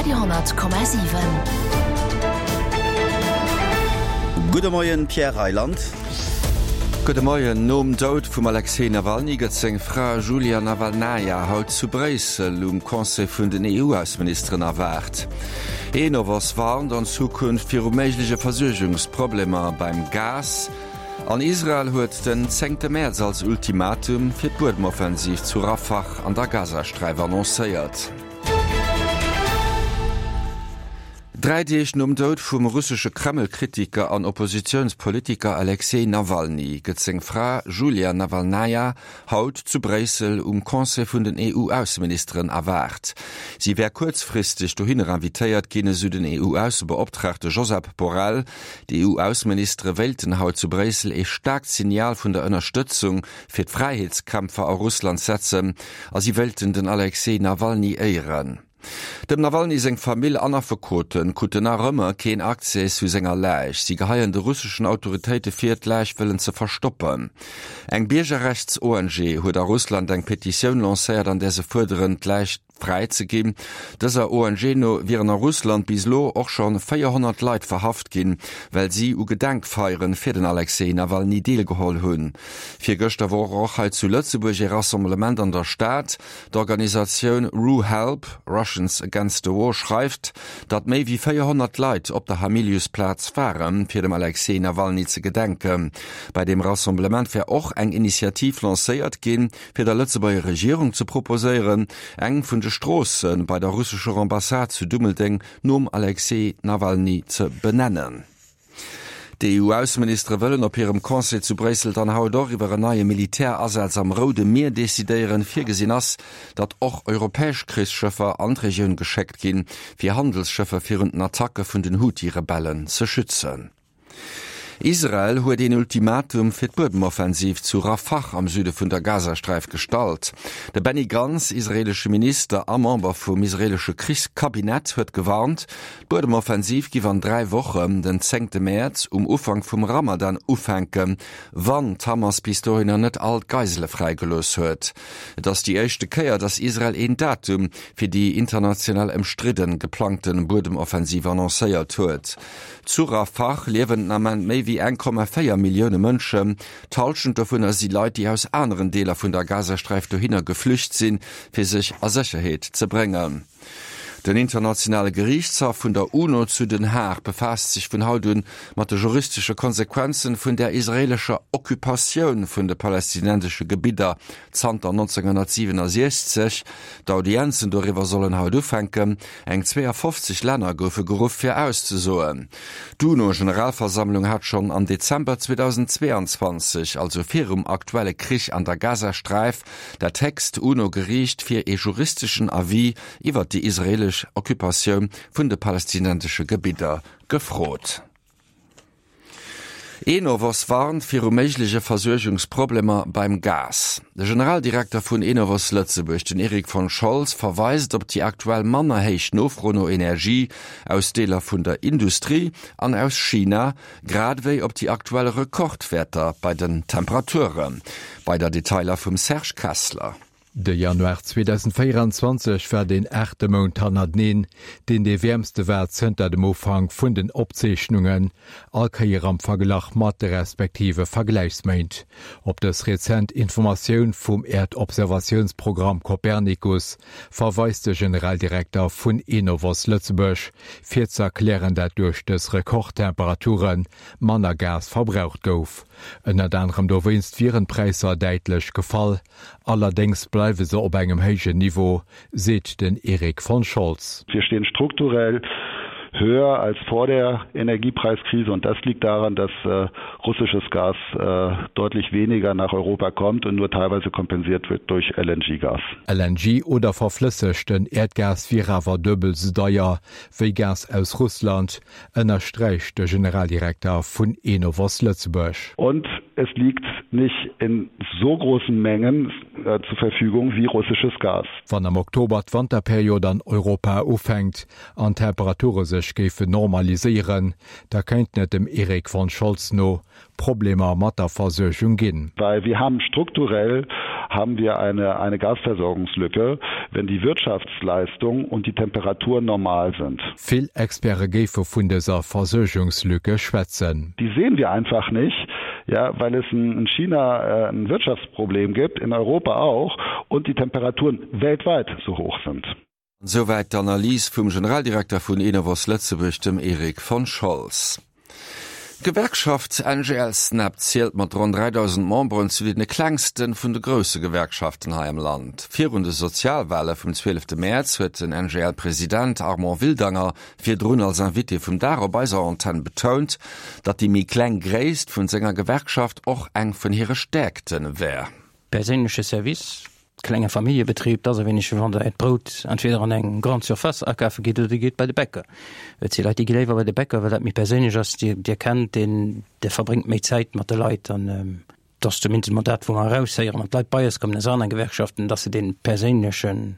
Radio 10,7. Gudde Moien, Pierre Reyland. Gudde Moien. Nom Doud vum Alexej Nawalny gëtt seng Fra Julia Nawalnaja haut zu Bréissel um Conseil vun den EU-Ausseministeren erwaart. Enovos warnt an Zukunft viru méigleche Versuergungsproblemer beim Gas. An Israel huet den zéngte Mäerz als Ultimatum fir d'Buedemoffensiv zu Rafah an der Gazasträif annoncéiert. Dräi Deeg nom Doud vum russesche Kreml-Kritiker an Oppositiounspolitiker Alexej Nawalny gëtt seng Fra Julia Nawalnaja haut zu Bréissel um Conseil vun den EU-Ausseministeren erwaart. Si wär kuerzfristeg dohinner invitéiert ginn, esou den EU-Aussebeoptraagte Josep Borrell. D'EU-Ausseministere wéilten haut zu Bréissel ee staarkt Signal vun der Ënnerstëtzung fir d'Fräiheetskämpfer a Russland setzen a si wéilten den Alexej Nawalny éieren. Dem Nawalny seng Famill an Affekote kruten nach ëmmer keen Accès zu senger Läich. Si geheien de russeschen Autoritéite vir, d'Läich wëllen ze verstoppen. Eng Biergerrechts-ONG huet a Russland eng Petitioun lancéiert, an där se fuerderen, d'Läich fräi ze ginn. Dëser ONG no wieren a Russland bis elo och scho 400 Leit verhaft ginn, well si u Gedenkfeiere fir den Alexej Nawalny deelgeholl hunn. Virgëschter wor och hei zu Lëtzebuerg ee Rassemblement an der Stad. D'Organisatioun RuHelp, Russians Against the War, schreift, datt méi wéi 400 Leit op der Hamiliusplaz waren, fir dem Alexej Nawalny ze gedenken. Bei deem Rassemblement wär och eng Initiativ lancéiert ginn, fir der Lëtzebuerger Regierung ze proposéieren, eng vun de Stroosse bei der russescher Ambassade zu Dummeldeng nom Alexej Nawalny ze benennen. D'EU-Ausseministere wëllen op hirem Conseil zu Bréissel dann haut och iwwer en neie Militärasaz am Roude Mier decidéieren. Virgesinn ass, datt och europäesch Krichsschëffer an d'Regioun geschéckt ginn, fir Handelsschëffer virun den Attacke vun den Huthi-Rebellen ze schützen. Israel huet een Ultimatum fir d'Buedemoffensiv zu Rafah am Süde vun der Gazasträif gestallt. De Benny Gantz, israeelesche Minister a Member vum israeelesche Krichskabinett, huet gewarnt, d'Buedemoffensiv giff an 3 Wochen, den zéngte Mäerz, um Ufank vum Ramadan ufänken, wann d'Hamas bis dohinner net all d'Geisele fräigelooss huet. Et ass déi éischte Kéier, datt Israel een Datum fir déi international ëmstridden geplangte Buedemoffensiv annoncéiert huet. Zu Rafah liewen den Ament méi wéi 1,4 Millioune Mënschen. D'Hallschent dovunner si Leit, déi aus aneren Deeler vun der Gazasträif dohinner geflücht sinn, fir sech a Sécherheet ze bréngen. Den internationale Geriichtshaff vun der UNO zu Den Haag befaasst sech vun haut un mat de juristesche Konsequenzen vun der israeelescher Occupatioun vun de palästinensesche Gebidder zanter 1967. D'Audienzen doriwwer sollen haut ufänken. Eng 52 Länner goufe geruff fir auszesoen. D'UNO-Generalversammlung hat schonn am Dezember 2022, also virum aktuelle Krich an der Gazasträif, dat héchst UNO-Geriicht fir ee juristeschen Avis iwwer déi israeelesch Occupatioun vun de palästinensesche Gebidder gefrot. Enovos warnt viru méigleche Versuergungsproblemer beim Gas. De Generaldirekter vun Enovos Lëtzebuerg, den Eric von Scholz, verweist op déi aktuell manner héich Nofro no Energie aus Deeler vun der Industrie an aus China, grad ewéi op déi aktuell Rekordwäerter bei den Temperaturen. Weider Detailer vum Serge Kessler. De Januar 2024 war deen aachte Mount hannerteneen, deen dee wäermste war zënter dem Ufank vun den Opzeechnungen, all Kéier am Verglach mat de respektive Vergläichsméint. Op dës rezent Informatioun vum Äerdobservatiounsprogramm Copernicus verweist de Generaldirekter vun Enovos Lëtzebuerg, fir ze erklären, dat duerch dës Rekordtemperature manner Gas verbraucht gouf. Ënnert anerem dowéinst wieren d'Präisser däitlech gefall. Allerdéngs bleiwe se op engem héijen Niveau, seet den Erik von Scholz. Wir stehen strukturell höher als vor der Energiepreiskrise und das liegt daran, dass russisches Gas deutlich weniger nach Europa kommt und nur teilweise kompensiert wird durch LNG-Gas. LNG oder verflëssegten Äerdgas wier awer duebel sou deier wéi Gas aus Russland, ënnersträicht de Generaldirekter vun Enovos Lëtzebuerg. Und es liegt nicht in so großen Mengen zur Verfügung wie russisches Gas. Wann am Oktober d'Wanterperiod an Europa ufänkt an d'Temperature sech. sech géifen normaliséieren, da kéinten et dem Erik von Scholz no Problemer mat der Versuergung ginn. Weil wir haben strukturell haben wir eine, eine Gasversorgungslücke, wenn die Wirtschaftsleistung und die Temperaturen normal sind. Vill Experte géife vun dëser Versuergungslücke schwätzen. Die sehen wir einfach nicht, ja, weil es in China äh, ein Wirtschaftsproblem gibt, in Europa auch und die Temperaturen weltweit so hoch sind. Souwäit d'Analys vum Generaldirekter vun Enovos Lëtzebuerg, dem Erik von Scholz. D'Gewerkschaft NGL-Snap zielt mat ronn 3.000 Memberen zu deene klengste vun de grousse Gewerkschaften hei am Land. Virun de Sozialwale vum 12 Mäerz huet den NGL-President Armand Wildanger virdrun als Invité vum Dag op eiser Antenn betount, datt déi méi kleng Gréisst vun senger Gewerkschaft och eng vun hire Stäerkte wär. Perséinleche Service, Klenge Familljebetrib, 't ass e wéineg wéi wann der äert Brout entweder an eng Grande Surface akafe gitt oder dir gitt bei de Bäcker. Et si Leit, déi gi léiwer bei de Bäcker, well dat méi perséinlech ass. Dir, dir kennt deen, dir verbréngt méi Zäit mat de Leit an et ass zumindest emol dat, wou mer eraushéieren, wann d'Leit bei eis kommen aus anere Gewerkschaften, dass se dee perséinlechen,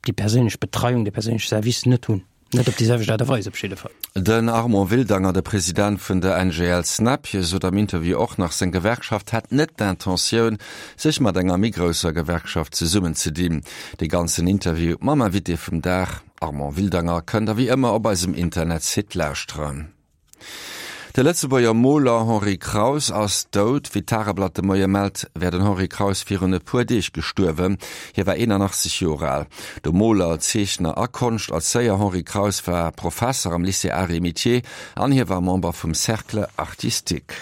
déi perséinlech Betreiung, dee perséinleche Service net hunn. Net op déi selwecht Aart a Weis op jidde Fall. Den Armand Wildanger, de President vun der NGL Snap, hie sot am Interview och nach, seng Gewerkschaft hätt net d'Intentioun, sech mat enger méi grousser Gewerkschaft zesummenzedinn. De ganzen Interview mam Invité vum Dag, Armand Wildanger, kënnt der wéi ëmmer op eisem Internetsite lauschteren. De Lëtzebuerger Moler Henri Kraus ass dout. Wéi d'Tageblatt de Moie mellt, wär den Henri Kraus virun e puer Deeg gestuerwen. Hie war 81 Joer al. De Moler, Zeechner a Konschterzéier Henri Kraus war Professer am Lycée Arts et Métiers an hie war Member vum Cercle artistique.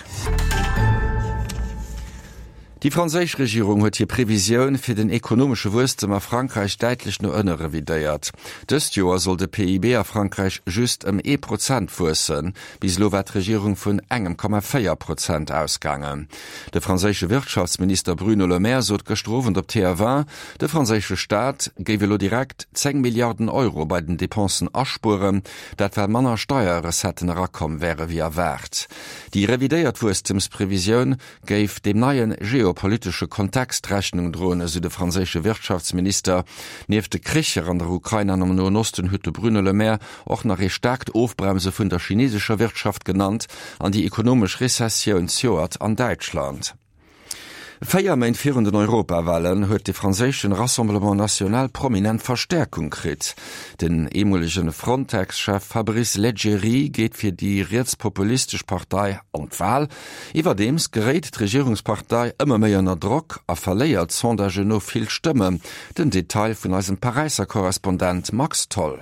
Déi franséisch Regierung huet hir Previsioun fir den ekonomesche Wuesstem a Frankräich däitlech no ënne revidéiert. Dëst Joer soll de PIB a Frankräich just ëm ee Prozent wuessen. Bis elo war d'Regierung vun engem Komma 4 Prozent ausgaangen. De franséische Wirtschaftsminister Bruno Le Maire sot gëschter Owend op TF1, de franséische Staat géif elo direkt 10 Milliarden Euro bei den Depensen aspueren, dat well manner Steierrecetten erakomm wäre wéi erwaart. Déi revidéiert Wuesstemsprevisioun géif deem neie geopolitesche Kontext Rechnung droen, esou de franséische Wirtschaftsminister. Nieft de Kricher an der Ukrain an am Noen Osten huet de Bruno Le Maire och nach ee staarkt Ofbremse vun der chinesescher Wirtschaft genannt an déi ekonomesch Rezessioun zejoert an Däitschland. Véier Méint virun den Europawalen huet de franséischen Rassemblement National prominent Verstäerkung kritt. Den eemolegen Frontex-Chef Fabrice Leggeri geet fir déi rietspopulistesch Partei an d'Wal. Iwwerdeems geréit d'Regierungspartei ëmmer méi ënner Drock a verléiert Sondagen no vill Stëmmen. Den Detail vun eisem Paräisser Korrespondent Max Tholl.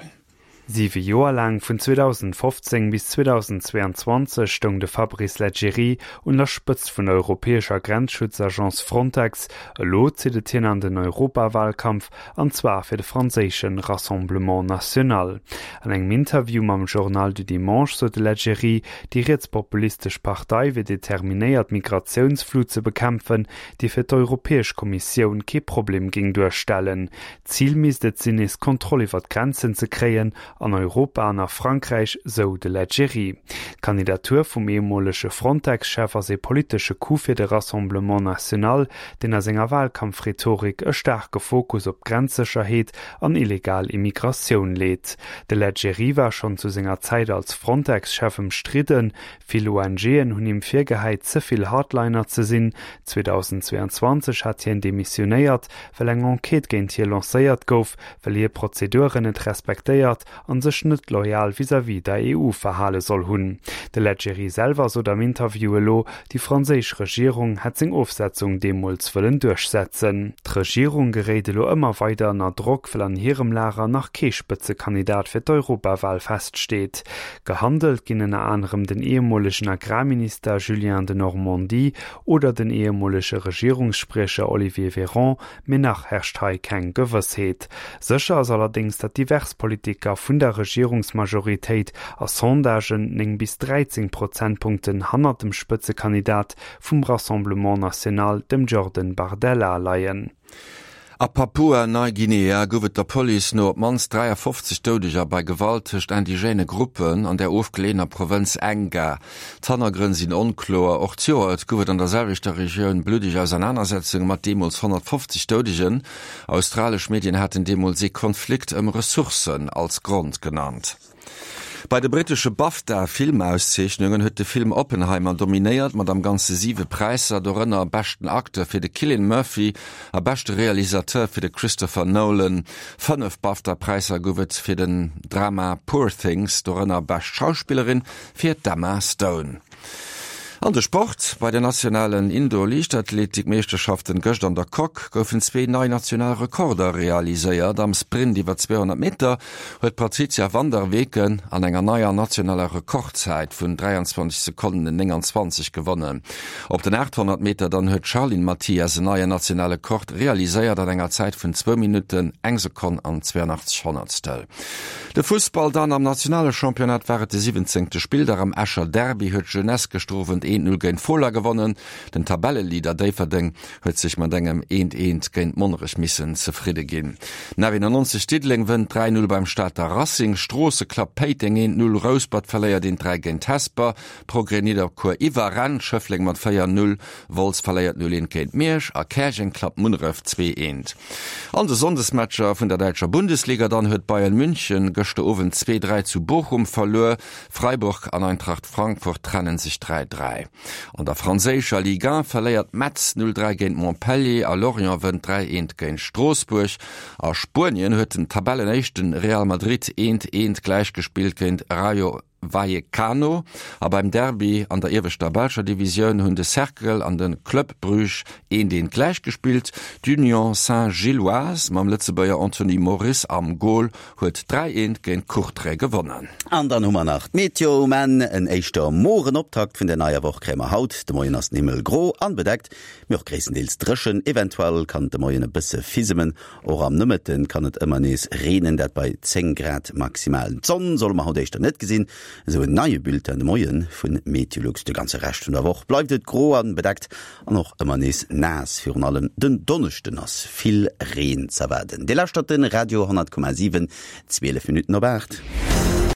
Siwe Joer laang, vun 2015 bis 2022, stoung de Fabrice Leggeri un der Spëtzt vun der europäescher Grenzschutzagence Frontex. Elo zitt et hien an den Europawalkampf, an zwar fir de franséische Rassemblement National. An engem Interview mam Journal du Dimanche sot de Leggeri, déi rietspopulistesch Partei wier determinéiert d'Migratiounsflut ze bekämpfen, déi fir d'Europäesch Kommissioun kee Problem géing duerstellen. D'Zil misst et sinn, nees Kontroll iwwer d'Grenzen ze kréien, an Europa an a Frankräich, sou de Leggeri. D'Kandidatur vum ehemolege Frontex-Chef ass ee politesche Coup fir de Rassemblement National, deen a senger Walkampfrhetorik e staarke Fokus op d'Grenzsécherheet an illegal Immigratioun leet. De Leggeri war schonn zu senger Zäit als Frontex-Chef ëmstridden. Vill ONGen hunn him virgehäit, ze vill Hardliner ze sinn. 2022 hat hien demissionéiert, well eng Enquête géint hie lancéiert gouf, well hie Prozeduren net respektéiert an sech net loyal vis-à-vis der EU verhale soll hunn. De Leggeri selwer sot am Interview elo, déi franséisch Regierung hätt seng Ofsetzung deemools wëllen duerchsetzen. D'Regierung geréit elo ëmmer weider ënner Drock, well an hirem Lager nach kee Spëtzekandidat fir d'Europawal feststeet. Gehandelt ginn ënner anerem den ehemolegen Agrarminister Julien Denormandie oder den ehemolege Regierungsspriecher Olivier Véran, Mee nach herrscht hei keng Gewëssheet. Sécher ass allerdéngs, datt divers Politiker vun der Regierungsmajoritéit a Sondagen 9 bis 13 Prozentpunkten hannert dem Spëtzekandidat vum Rassemblement National, dem Jordan Bardella, leien. A Papua-Neiguinea gouf et der Police no op d'mannst 53 Doudeger bei Gewalt tëscht indigène Gruppen an der ofgeleeëner Provënz Enga. D'Hannergrënn sinn onkloer. Och d'Joert gouf et an der selwechter Regioun bluddeg Ausernanersetzunge mat deemools 150 Doudegen. Australesch Medien haten deemools ee Konflikt ëm Ressourcen als Grond genannt. Bei de brittesche BAFTA-Filmauszeechnungen huet de Film Oppenheimer dominéiert, mat am Ganze siwe Präisser, dorënner beschten Acteur fir de Cillian Murphy a beschte Realisateur fir de Christopher Nolan. Fënnef BAFTA-Präisser gouf et fir den Drama Poor Things, dorënner bescht Schauspillerin fir d'Emma Stone. An de Sport, Bei den nationalen Indoor-Liichtathletik-Meeschterschaften gëscht an der Coque goufen zwee nei national Rekorder realiséiert. Am Sprint iwwer 200 Meter huet d'Patrizia van der Weken an enger neier nationaler Rekordzäit vun 23 Sekonnen 29 gewonnen. Op den 800 Meter dann huet d'Charline Mathias en neien nationale Kord realiséiert an enger Zäit vun zwou Minutten, eng Sekonn an 82 Honnertstel. De Fussball dann, Am nationale Championnat war et de siwwenzéngte Spilldag. Am Escher Derby huet d'Jeunesse gëschter Owend 1, 0 géint Fola gewonnen. Den Tabelleleader Déifferdeng huet sech mat engem 1, 1 géint Monnerech missen zefridde ginn. Den 91 Diddeleng wënnt 3, 0 beim Stater Racing. Stroosse klappt Péiteng 1, 0, Rouspert verléiert 1, 3 géint Hesper. Progrès Nidderkuer iwwerrennt Schëffleng mat 4, 0, Wolz verléiert 0, 1 géint Miersch a Käerjeng klappt Munneref 2, 1. An de Sonndesmatcher vun der däitscher Bundesliga dann huet Bayern München gëschter Owend 2, 3 zu Bochum verluer. Freiburg an Eintracht Frankfurt trennen sech 3, 3. An der franséischer Ligue 1 verléiert Metz 0, 3 géint Montpellier a Lorient wënnt 3, 1 géint Stroossbuerg. A Spuenien huet den Tabellenéischten Real Madrid 1, 1 gläichgespillt géint Rayo Vallecano a beim Derby an der ieweschter belscher Divisioun hunn de Cercle an de Club Bruges eent eent gläich gespillt. D'Union Saint-Gilloise mam Lëtzebuerger Anthony Moris am Gol huet 3 eent géint Courtrai gewonnen. An dann hu mer nach d'Meteo um Enn. En éischter moren Optakt vun der neier Woch kréie mer haut. De Moien ass den Himmel gro an bedeckt, mee och gréisstendeels dréchen. Eventuell kann et de Moien e bësse fisemen. Och am Nomëtte kann et ëmmer nees reenen, dat bei 10 Grad maximal. D'Sonn solle mer haut éischter net gesinn, esou en neie Bulletin de Moie vu Meteolux. De ganze Rescht vun der Woch bleift et gro an bedeckt an och ëmmer nees naass. Virun allem den Donneschden ass vill Reen z'erwaarden. Dir lauschtert de Radio 10,7, 12 Minutten op 8.